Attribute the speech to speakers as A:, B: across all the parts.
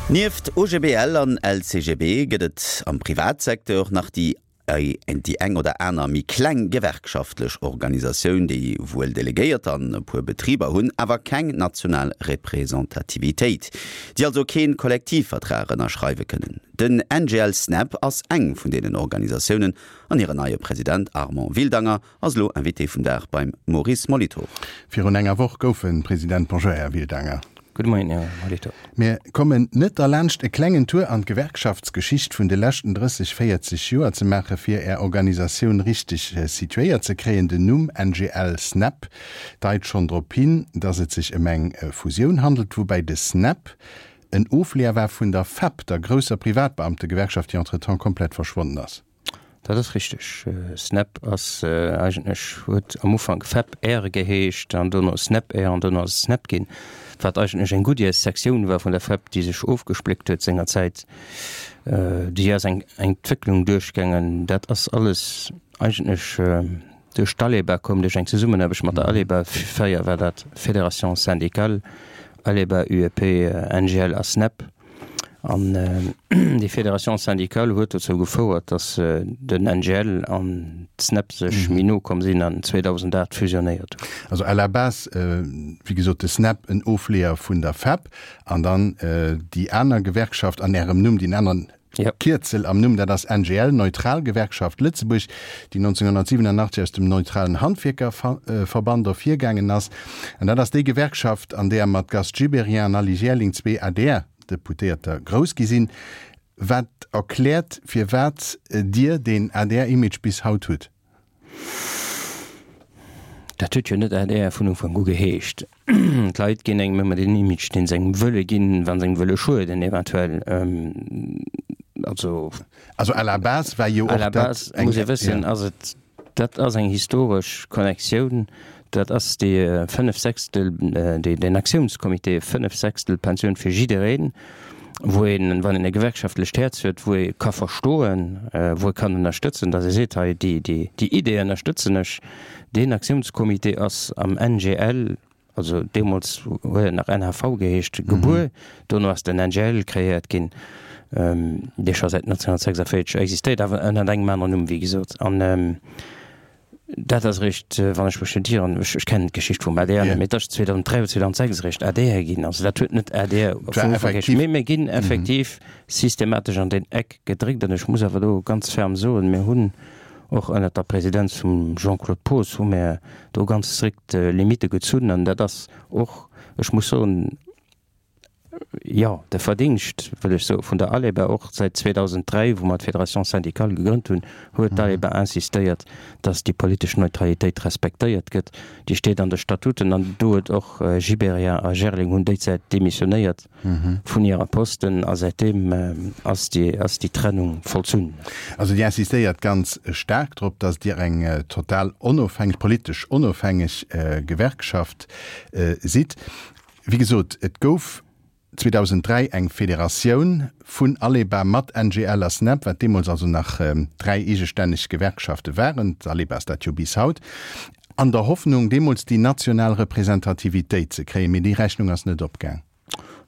A: Nieft OGBL an LCGB gëtt et am Privatsecteur nach déi déi eng oder aner méi kleng gewerkschaftlech Organisatioun, déi wuel Delegéierter an e puer Betriber hunn, awer keng national Representativitéit, déi also kee Kollektivvertrag ënnerschreiwe kënnen. Den NGL Snep ass eng vun deenen Organisatiounen an hiren neie President Armand Wildanger ass elo Invité vum Dag beim Maurice Molitor.
B: Virun enger Woch gouf en President. Bonjour Här Wildanger.
C: Gudde Moien, Här Molitor.
B: Mir kommen net derlaanscht e klengen Tour an d'Gewerkschaftsgeschicht vun de leschten 30, 40 Joer ze maachen, fir Är Organisatioun richteg situéiert ze kréien. Den Numm NGL Snep deit schonn drop hin, dass et sech ëm eng Fusioun handelt, woubäi de Snep en Ofleeër war vun der FEP, der grousser Privatbeamtegewerkschaft, déi entretemps komplett verschwonnen ass.
C: Dat ass richteg. Snap ass eigentlech, huet am Ufank Fep-Air geheescht an dono Snap-Air an dono ass et Snap ginn, wat eigentlech eng Goodyear-Sektioun war vun der Fep, déi sech ofgespléckt huet sengerzäit. Déi ass eng Entwécklung duerchgaangen. Dat ass alles eigentlech duerch d'Aleba komm, duerch eng Zesummenaarbecht mat der Aleba. Fréier war dat Fédération syndicale, Aleba, UEP, NGL a Snap. An déi Fédération syndicale huet dozou gefouert, datt den NGL an d'SNEP sech méi no komm sinn an 2008 fusionéiert hunn.
B: Also à la base, wéi gesot, de SNEP en Ofleeër vun der FEP an dann déi aner Gewerkschaft an Ärem Numm, deen aneren Kierzel am Numm, dat ass NGL, Neutral Gewerkschaft Lëtzebuerg, déi 1987 aus dem Neutralen Handwierkerverband ervirgaangen ass. An dat ass déi Gewerkschaft, an där mat Gast Gibéryen an Aly Jaerling zwee ADR-Deputéierter grouss gi sinn. Wat erkläert, firwat Dir deen ADR-Image bis haut hutt.
C: Dat huet jo net adr vun Ufank u geheescht. D'Leit ginn engem ëmmer deen Image, deen se engem wëlle ginn, wa se engem wëlle schueden eventuell.
B: Also. Also à la base war jo och
C: dat eng. À la base, muss ee wëssen, ass et, dat ass eng historesch Connectioun, dat ass déi Fënnefsechstel, deen Aktiounscomité, Fënnefsechstel-Pensioun fir jiddereen. wou een, wann een e gewerkschaftlecht Häerz huet, wou ee ka verstoen, wou ee kann ënnerstëtzen, datt ee seet, hei déi, déi, déi Idee ënnerstëtzen ech. Deen Aktiounscomité ass am NGL, also deemools huet et nach NHV geheescht, gebuer. Dono ass den NGL kreéiert ginn, dee scho säit 1946 existéiert, awer ënnert engem aneren Numm, wéi gesot. An Dat ass eréischt, wann ech mech net ieren, ech kennen d'Geschicht vum adr net, mee et ass 2003 oder 2006 eréischt adr ginn. Also dat huet net adr vun Ufank geheescht. Mee mir ginn effektiv systematesch an deen Eck gedréckt. An ech muss awer do ganz ferm soen, mir hunn och ënnert der Presidenz vum Jean-Claude Poos hu mir do ganz strikt Limitte gezunn. An dat ass och, ech muss soen, jo, de Verdingscht, wëll ech soen, vun der ALEBA, och säit 2003, wou mer d'Fédération syndicale gegrënnt hunn, huet d'ALEBA insistéiert, dass déi politesch Neutralitéit respektéiert gëtt. Déi steet an de Statuten an do huet och Gibéryen a Gerling hunn déizäit demissionéiert vun hirer Posten a säitdeem ass déi, ass déi Trennung vollzunn.
B: Also Dir insistéiert ganz staark drop, dass Dir eng total onofhängeg, politesch onofhängeg Gewerkschaft sidd. Wéi gesot, et gouf 2003 eng Federatioun vun Aleba mat NGL a Snep, wat deemools also nach dräi eegestänneg Gewerkschafte waren, d'Aleba ass dat jo bis haut, an der Hoffnung, deemools déi national Representativitéit ze kréien. Mee déi Rechnung ass net opgaang.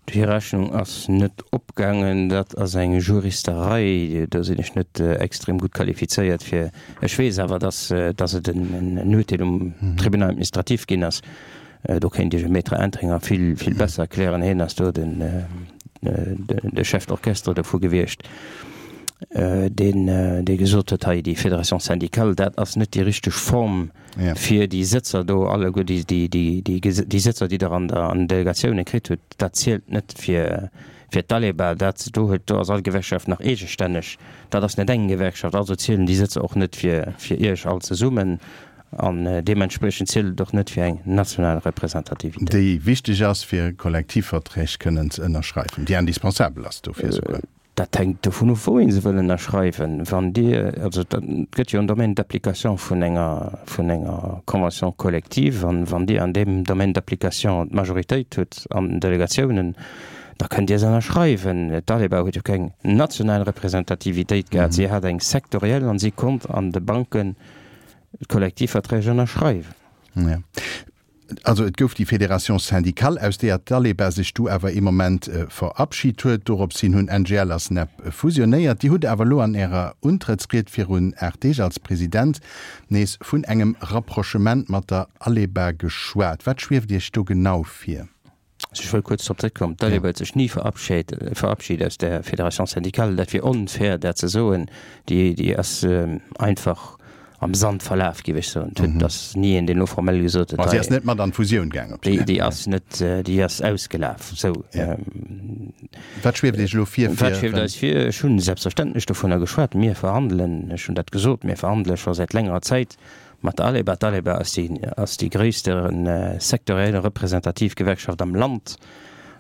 C: Déi Rechnung ass net opgaangen. Dat ass eng Juristerei, do sinn ech net extrem gutt qualifizéiert fir. Ech weess awer, dass et en Urteel um Tribunal administratif ginn ass, Do kéint Iech e Maître Entringer vill, vill besser erklären. Hien ass do den, de Chef d'orchestre dovu gewiescht, deen, dee gesot huet, hei déi Fédération syndicale, dat ass net déi richteg Form, fir déi Sëtzer do alleguer, déi, déi, déi, déi Sëtzer, déi Der an der, an den Delegatioune kritt hutt, dat zielt net fir, fir d'Aleba. Dat do huet, do ass all Gewerkschaft nach eegestänneg. Dat ass net eng Gewerkschaft, also zielen déi Sëtzer och net fir, fir Iech all zesummen. An deementspriechend zielt et och net fir eng national Representativitéit.
B: Déi wichteg ass, fir Kollektivverträg kënnen ze ënnerschreiwen, déi indispensabel ass dofir
C: esouguer. Dat hänkt dovun of, wou ee se wëll ënnerschreiwen. Wann Dir, also et gëtt jo en Domaine d'application vun enger, vun enger Convention collective, an wann Dir an deem Domaine d'application d'Majoritéit hutt an den Delegatiounen, da kënnt Dir se ënnerschreiwen. D'Aleba huet jo keng national Representativitéit gehat, si hat eng sektoriell an si konnt an de Banken, D'Kollektivverträg ënnerschreiwen.
B: Ja. Also et gouf déi Fédération syndicale, aus deeër d'Aleba sech du awer ee Moment verabschit huet. Dorops hin hunn NGL a SNEP fusionéiert. Dir hutt awer elo an Ärer Untrëttsried virun 8 Deeg als President nees vun engem Rapprochement mat der Aleba geschwat. Wat schwieft Iech do genau vir?
C: Also ech wëll kuerz drop zréckkommen, D'Aleba huet sech ni verabschit aus der Fédération syndicale. Dat wier onfair, dat ze soen. Déi ass einfach am Sand verlaf, géif ech soen. Et ass ni een, deen elo formell gesot huet,
B: Ma si ass net mat an d'Fusioun gaang
C: op déi. Déi ass net, déi ass ausgelaf. Sou.
B: Wat schwieft Iech elo vir?
C: Wat schwieft eis vir? Ech hunn selbstverständlech dovunner geschwat. Mir verhandelen, ech hunn dat gesot, mir verhandele scho säit längerer Zäit Mat der Aleba. D'Aleba ass déi ass déi gréisste sektoriell representativ Gewerkschaft am Land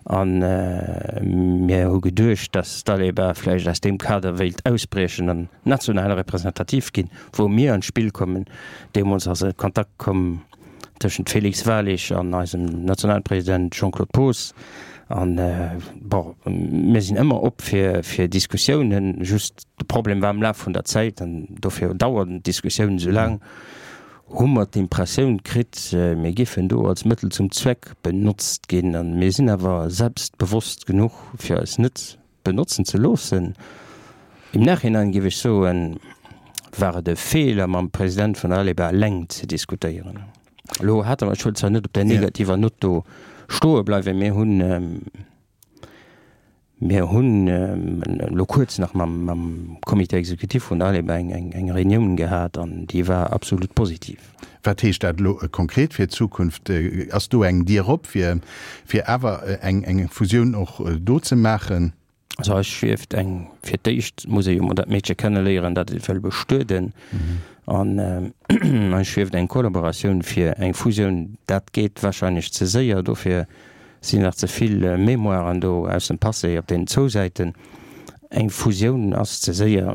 C: a mir hu geduecht, datt d'Aleba vläicht aus deem Kader wéilt ausbriechen an national representativ ginn, wou mir an d'Spill kommen. Deemools ass e Kontakt komm tëschent Félix Walig an eisem Nationalpresident Jean-Claude Poos an, bon, mir sinn ëmmer op fir fir Diskussiounen, just De Problem war am Laf vun der Zäit, an dofir dauern d'Diskussiounen esou laang, hu mer d'Impressioun kritt, mir géifen do als Mëttel zum Zweck benotzt ginn. A mir sinn awer selbstbewosst genuch, fir eis net benotzen ze loossen. Im Nachhinein géif ech soen, war et e Feeler, mam President vun der Aleba eleng ze diskutéieren. Elo hate mer, ech wëll zwar net op där negativer Nott do stoe bleiwen, mir hunn, Mir hunn elo kuerz nach mam Comité exécutif vun der ALEBA eng Reunioun gehat an déi war absolut positiv.
B: Wat heescht dat elo konkret fir d'Zukunft? Ass do eng Dier op, fir awer eng Fusioun och do ze maachen?
C: Also eis schwieft eng, fir d'éischt muss ee jo mol dat Meedche kenneléieren, dat ee wëll bestueden. An eis schwieft eng Kollaboratioun fir eng Fusioun. Dat geet wahrscheinlech ze séier, dofir sinn nach ze vill Mémoiren do aus dem Passé op deenen zwou Säiten. Eng Fusioun ass ze séier.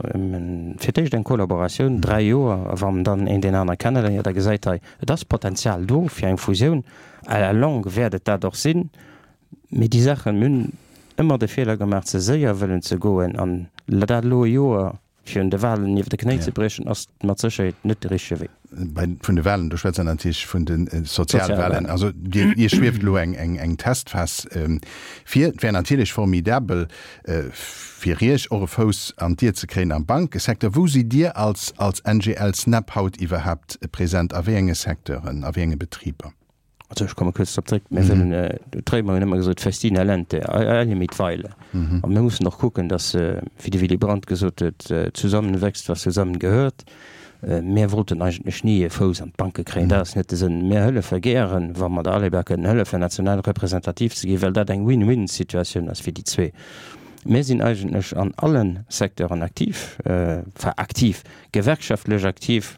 C: Fir d'éischt eng Kollaboratioun, 3 Joer, a wann dann een deen anere kenneléiert a gesäit, hei, et ass Potenzial do fir eng Fusioun, à la longue wäert et dat och sinn. Mee déi Saachen, mir hunn ëmmer de Feeler gemaach, ze séier wëllen ze goen an dat elo e Joer Fir un de Walen iwwer de Knéi ze briechen, ass mat Sécherheet net de richtege Wee.
B: Bei vun de Walen, do schwätzt Der natierlech vun de Sozialwalen. Also Dir, Iech schwieft elo eng, eng, eng Testphas vir. Et wär natierlech formidabel fir Iech och e Fouss an d'Dier ze kréien am Bankesecteur. Wou sidd Dir als, als NGL Snap haut iwwerhaapt present? A wéi enge Secteuren, a wéi enge Betriber?
C: Also ech komme kuerz drop zréck, mir wëllen, d'Réimer hunn ëmmer gesot, Festina lente, eile mit Weile. A mir mussen och kucken, datt, wéi de Willy Brandt gesot huet, zusammen wächst, was zusammen gehört. Mir wollten eigentlech ni e Fouss an d'Banke kréien, dat ass net de Sënn. Mir hëllefe gären, wa mer der Aleba kënnen hëllefen, national representativ ze ginn, well dat eng Win-win-Situatioun ass fir déi zwee. Mir sinn eigentlech an alle Secteuren aktiv, enfin aktiv, gewerkschaftlech aktiv,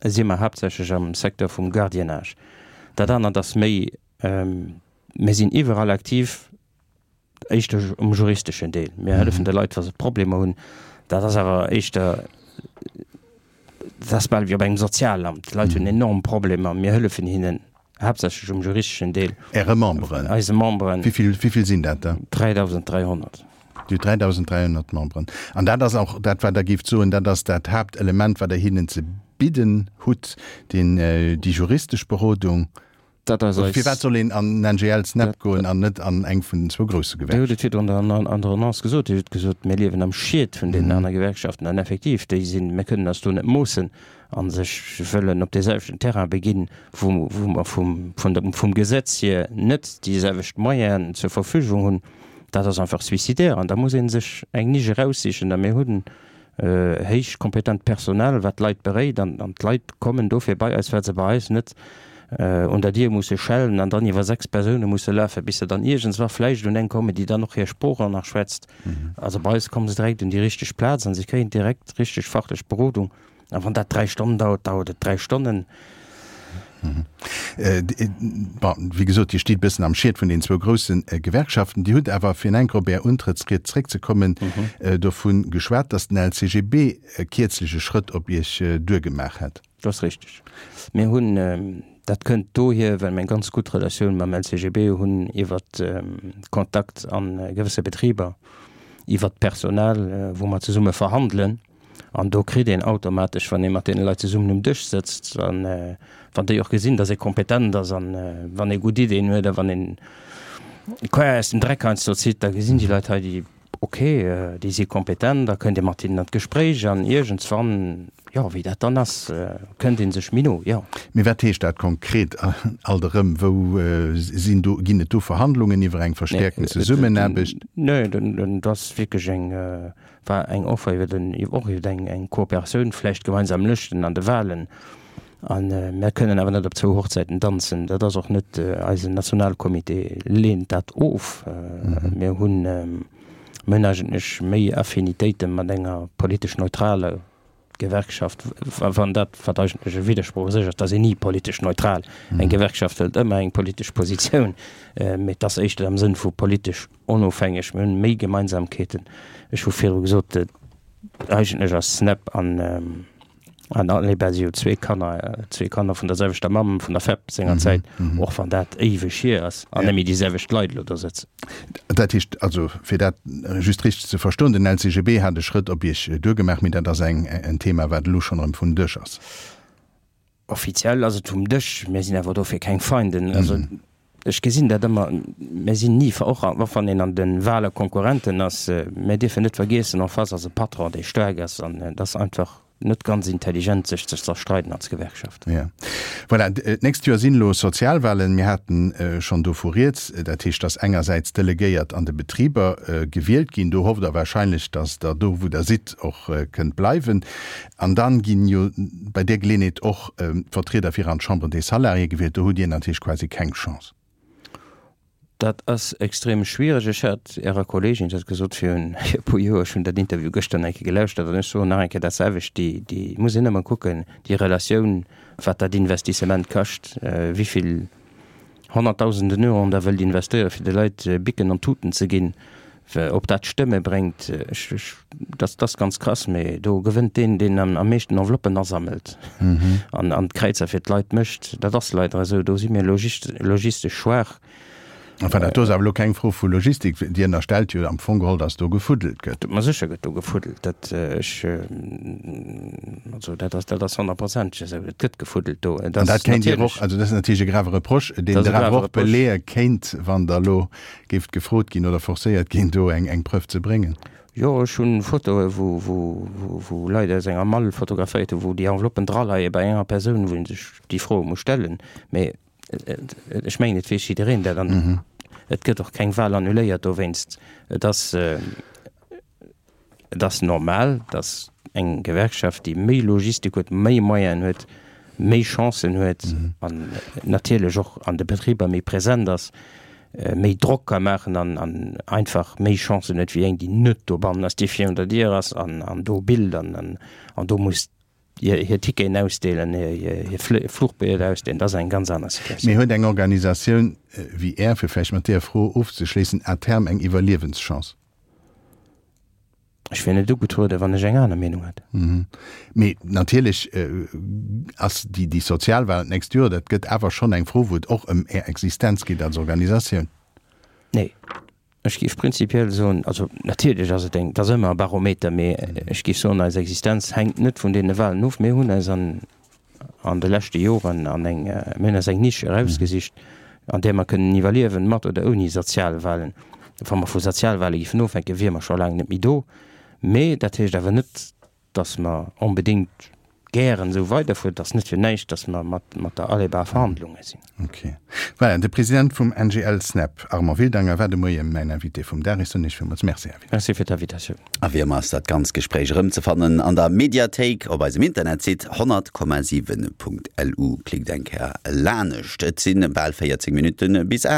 C: si mer haaptsächlech am Secteur vum Gardiennage. Dat anert ass méi, mir sinn iwwerall aktiv, éischter um juristeschen Deel. Mir hëllefen de Leit, wa se Problemer hunn. Dat ass awer éischter, dat ass bal wéi op engem Sozialamt. D'Leit hunn enorm Problemer, mir hëllefen hinnen haaptsächlech um juristeschen Deel.
B: Äre Memberen?
C: Eise Memberen.
B: Wéi vill sinn dat der?
C: 3.300.
B: Dir hutt 3.300 Memberen. An dat ass och dat, wat Der géift soen, dat ass dat Haaptelement, wat Der hinnen ze bidden hutt, deen, déi juristesch Berodung.
C: Dat ass eis.
B: Firwat soll een an den NGL SNEP goen an net an eng vun den zwou grousse
C: Gewerkschaften? Dir hutt et virdrun an der Annonce gesot. Dir hutt gesot, mir liewen am Schiet vun deenen aner Gewerkschaften. An effektiv, déi sinn, mir kënnen eis do net moossen a sech wëllen op dee selwechten Terrain beginn, wou mer vum, vum Gesetz hier net déi selwecht Moyenen zur Verfügung hunn. Dat ass einfach suicidaire an da muss ee sech eng Nisch eraussichen. A mir hunn héich kompetent Personal, wat d'Leit beréit an d'Leit kommen dofir bei eis, well se bei eis net un der Dier musse schellen an dann iwwer 6 Persoune musse lafen, bis se dann iergendswa vläicht un eng kommen, déi dann och hir Sprooch och nach schwätzt. Also bei eis komme se direkt un déi richteg Plaz an se kréien direkt richteg fachlech Berodung. A wann dat 3 Stonnen dauert, dauert et 3 Stonnen.
B: Bon, wéi gesot, Dir stitt e bëssen am Schiet vun den zwou grousse Gewerkschaften. Dir hutt awer, fir enk op Är Untrëttsried zréckzekommen, dovu geschwat, datt den LCGB kierzlech e Schrëtt op Iech duergemaach hätt.
C: Dat ass richteg. Mir hunn, dat kënnt dohier, well mir eng ganz gutt Relatioun mam LCGB hunn iwwer Kontakt a gewësse Betriber, iwwer d'Personal, wou mer zesumme verhandelen. An do kritt een automatesch, wann ee mat deene Leit zesummen um Dësch sëtzt, an wann déi och gesinn, datt ee kompetent ass an wann ee gutt Ideeën huet a wann een d'Quer aus dem Dreck heiansdo zitt, da gesinn déi Leit hei, déi, ok, déi si kompetent, da kënnt ee mat hinnen an d'Gespréich an iergendswann, jo, wéi dat dann ass, kënnt ee sech méi no, jo.
B: Mee wat heescht dat konkret alt erëm? Wou sinn do, ginn et do Verhandlungen iwwer eng verstäerkten Zesummenaarbecht?
C: Nee, dat ass wierklech eng, war eng Offer iwwer den, och iwwer eng, eng Kooperatioun, vläicht gemeinsam Lëschten an de Wahlen. A mir kënnen awer net op zwou Hochzäiten danzen. Dat ass och net, eisen Nationalcomité leent dat of. Mir hunn, mir hunn eigentlech méi Affinitéite mat enger politesch neutraler Gewerkschaft, wann dat, wat eigentlech e Widdersproch u sech ass, et ass een ni politesch neutral. Eng Gewerkschaft hëlt ëmmer eng politesch Positioun, mee et ass éischter am Sënn vu politesch onofhängeg. Mir hunn méi Gemeinsamkeeten. Ech hu virdru gesot, eigentlech ass SNEP an An Aleba si jo zwee Kanner, zwee Kanner vun der selwechter Mamm, vun der FEP sengerzäit, och wann dat éiweg hier ass an net méi déi selwecht Leit elo do sëtzen.
B: Dat heescht also, fir dat just richteg ze verstoen, den LCGB hat e Schrëtt op Iech duergemaach, mee dat ass eng en Thema, wat elo schonn erëm vum Dësch ass.
C: Offiziell ass et vum Dësch, mir sinn awer dofir keng Feinden. Also ech gesinn dat ëmmer, mir sinn ni, och wann een an de Wahle Konkurrenten ass, mir dierfen net vergiessen, en face ass e Patron, dee staark ass an et ass einfach net ganz intelligent, sech ze zerstreiden als Gewerkschaft.
B: Jo. Voilà, d'nächst Joer sinn elo Sozialwahlen. Mir haten schonn dovu rieds. Dat heescht, datt engersäits d'Delegéiert an de Betriber gewielt ginn. Do hofft Der wahrscheinlech, datt Der do, wou Der sidd, och kënnt bleiwen. An dann ginn jo bei där Geleeënheet och d'Vertrieder fir an d'Chambre des Salariés gewielt. Do hutt Dir natierlech quasi keng Chance.
C: Dat ass extrem schwiereg. Ech hat Ärer Kolleegin dat gesot virun e puer Joer. Ech hunn dat Interview gëschter nach eng Kéier gelauschtert an ech soen nach eng Kéier dat selwecht, Déi, déi muss een ëmmer kucken, déi Relatioun, wat dat Investissement kascht, wéi vill Honnertdausenden Euroen Der wëllt investéieren, fir de Leit Bicken an Tuten ze ginn, ob dat Stëmme bréngt. Ech, ech, dat ass ganz krass, mee do gewënnt deen, deen am meeschten Enveloppen asammelt an, an d'Kräizer fir d'Leit mécht. Dat ass leider esou. Do si mir logistesch schwaach.
B: Enfin, dat do ass awer elo keng Fro vu Logistik. Dir ënnerstellt jo am Fong geholl, datt do gefuddelt gëtt.
C: Ma sécher gëtt do gefuddelt. Dat, ech, also dat ass, dat ass honnertprozenteg esou. Et gëtt gefuddelt do.
B: Et An ass dat kéint Dir och, also dat ass natierlech e grave Reproche, deen Der awer och beleeë kéint, wann Der elo géift gefrot ginn oder forcéiert ginn, do eng, eng Preuve ze bréngen.
C: Jo, ech hunn Fotoe wou, wou, wou Leit aus enger Mall fotograféiert hunn, wou déi Enveloppen draleie bei enger Persoun, wou ee sech déi Froe muss stellen. Mee Ech mengen, et weess jiddereen dat an et gëtt och keng Wahl annuléiert dowéinst. Et ass, et ass normal, datt eng Gewerkschaft, déi méi Logistik huet, méi Moyenen huet, méi Chancen huet an natierlech och an de Betriber méi present ass, méi Drock ka maachen an an einfach méi Chancen huet wéi eng, déi net dobannen ass, déi virun der Dier ass an an do billt an an do muss hir Ticketen ausdeelen, hir Fluchbillete ausdeelen, dat ass eng ganz aner
B: Situatioun. Mee huet eng Organisatioun wéi Är, fir vläicht mat deeër Fro ofzeschléissen, à terme eng Iwwerliewenschance?
C: Ech wier net ugetrueden, wann ech eng aner Meenung hätt.
B: Mee natierlech ass déi Sozialwahlen d'nächst Joer, dat gëtt awer schonn eng Fro, wou et och ëm Är Existenz geet als Organisatioun.
C: Nee. Ech géif prinzipiell soen, also natierlech ass et eng, et ass ëmmer e Barometer, mee ech géif soen, eis Existenz hänkt net vun deene Wahlen of. Mir hunn eis an an de leschte Joren an eng, mir hunn eis eng Nisch erausgesicht, an där mer kënnen iwwerliewen, mat oder ouni Sozialwahlen. Wa mer vu Sozialwahle géifen ofhänken, wiere mer scho laang net méi do. Mee dat heescht awer net, dass mer onbedéngt gären esou weiderfueren. Et ass net fir näischt, dass mer mat mat der Aleba a Verhandlunge sinn.
B: Ok. Voilà, de President vum NGL SNEP, Armand Wildanger, war de Moie mäin Invité vum Dag. Ech soen Iech villmools Merci, Här
C: Wildanger. Merci fir d'Invitatioun.
A: A wéi ëmmer ass dat ganz Gespréich erëmzefannen an der Mediathéik op eisem Internetsite 100,7.lu. Klickt eng Kéier lanescht. Et si bal 14 Minutte bis 8.